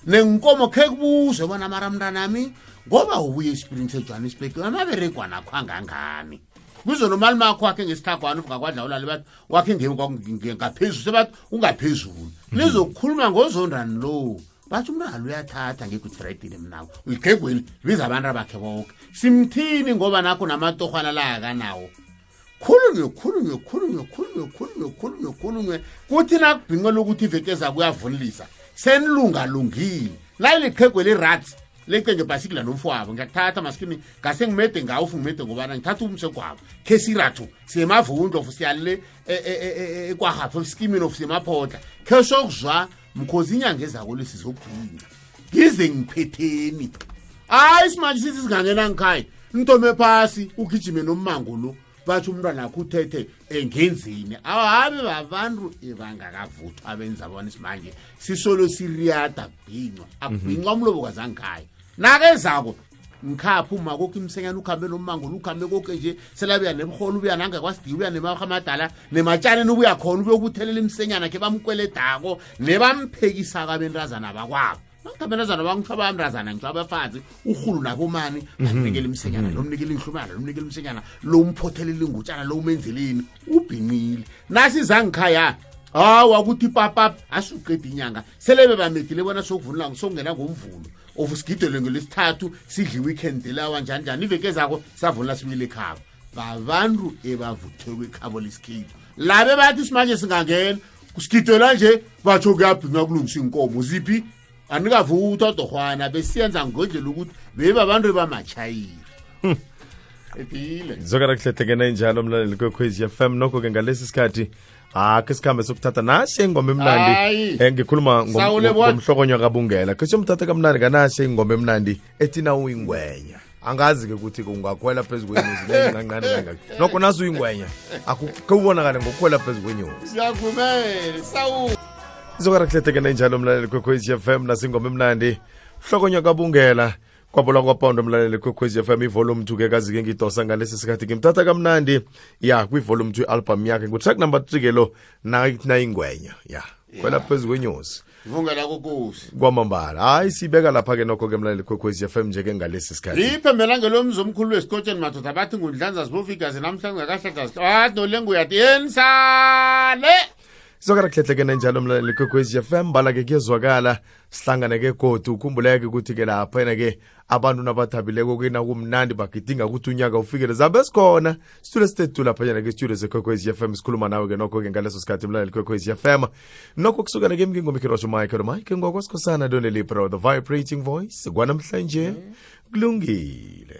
nenkomo khe kubuze bona maramntanami ngoba ubuye esprints eJohannesburg amaberegwa nakho angangani kuzo nomali makho wakhe ngesithagwana uvuka kwadlawula bathi wakhe ngaphezulu sebathi ungaphezulu lizokukhuluma ngozondani lo bathi umntwana uyathatha nge-Good Friday mnawo uyiqhegweli biza abantu abakhe bonke simthini ngoba nakho namatohwana la akanawo khulunywe kuthi nakubhinqela ukuthi ivekeza kuyavunilisa senilungalungile layiliqhegweli rats lecenge bhasikila nomfowabo ngiyakuthatha maskini ngase ngimede ngawo ufungimede ngobana ngithatha umsekwabo khesirathu siyemavundlo siyalile kwahafu skimini of siyemaphotla khesokuzwa mkhozi inyanga ezako lesizokugcina ngize ngiphetheni hayi simanje sithi singangena ngikhaya ntome phasi ugijime nommango lo bathi umntwana akho uthethe engenzini awabe babantu ebangakavuthwa abenza bona isimanje sisolo siriyada bhinqwa abhinqwa umlobo kazangikhaya nakezako ngikhapha uma kokho imsenyana ukhambe nommango ukhambe konke nje selabuya nemholo ubuya nangakwasidiya ubuya nemahamadala nematshane ubuya khona ubuyokuthelela imsenyana ke bamkweledako nebamphekisa kabentazana bakwabo Nangabenzana bangithaba amrazana ngicaba abafazi uhulu nabomani banikele imsenyana nomnikele inhlumana nomnikele imsenyana lo umphothelela ingutshana lo umenzeleni ubhinqile nasi zangikhaya wakuthi papa asuqeda inyanga selebe bamedile bona sokuvunula ngisongena ngomvulo ofusigidele ngelesithathu sidli weekend lawa njani iveke zako savunula sibile ekhaya babantu ebavuthwe ekhabo lesikhipo labe bathi simanje singangena kusigidela nje batho kuyabhinqa kulungisa inkomo ziphi anikavuthwa dohwana besiyenza ngodlela ukuthi beba abantu bamachayiri epile zokara kuhlehlekena njalo mlaleli kwekhwezi FM nokho ke ngalesi sikhathi ke sikhambe sokuthatha nasi ingoma emnandi ngikhuluma ngomhlokonywa kabungela ke somthatha kamnandi kanasi ingoma emnandi etina uyingwenya angazi ke ukuthi ungakhwela phezulu kwenyuzi lengancane kangaka nokho naso uyingwenya akukubonakala ngokukhwela phezulu kwenyuzi siyavumela sawu zokara kuhlehlekena njalo mlaleli kwekhwezi FM nasingoma emnandi hlokonywa kabungela kwabola kwapondo mlaleli kwekhwezi FM ivolume 2 ke kazi ke ngidosa ngalesi sikhathi ngimthatha kamnandi ya kwivolume 2 album yakhe ngutrack number 3 ke lo na ingwenya ya kwela phezulu kwenyuzi vungela kokusi kwamambala hayi sibeka lapha ke nokho ke mlaleli kwekhwezi FM nje ke ngalesi sikhathi iphembela ngelomzo omkhulu wesikotsheni madoda bathi ngundlanza sibofikazi namhlanje akahlakazi no lengu yathi yensale sokara kuhlehlekene njalo mlaleli kwekwezi FM bala-ke kuyezwakala sihlangane-ke godu ukhumbuleke ukuthi-ke lapha-ke abantu nabathabileko kumnandi bagidinga ukuthi unyaka ufikele zabe sikhona situlo stethu laphanyana-ke studio zekwekwezi FM sikhuluma nawe-ke nokho-ke ngaleso sikhathi mlaleli kwekwezi FM nokho kusukela-ke mngingomikirosho mike ngokwasikhosana donelipro the vibrating voice kwanamhlanje kulungile.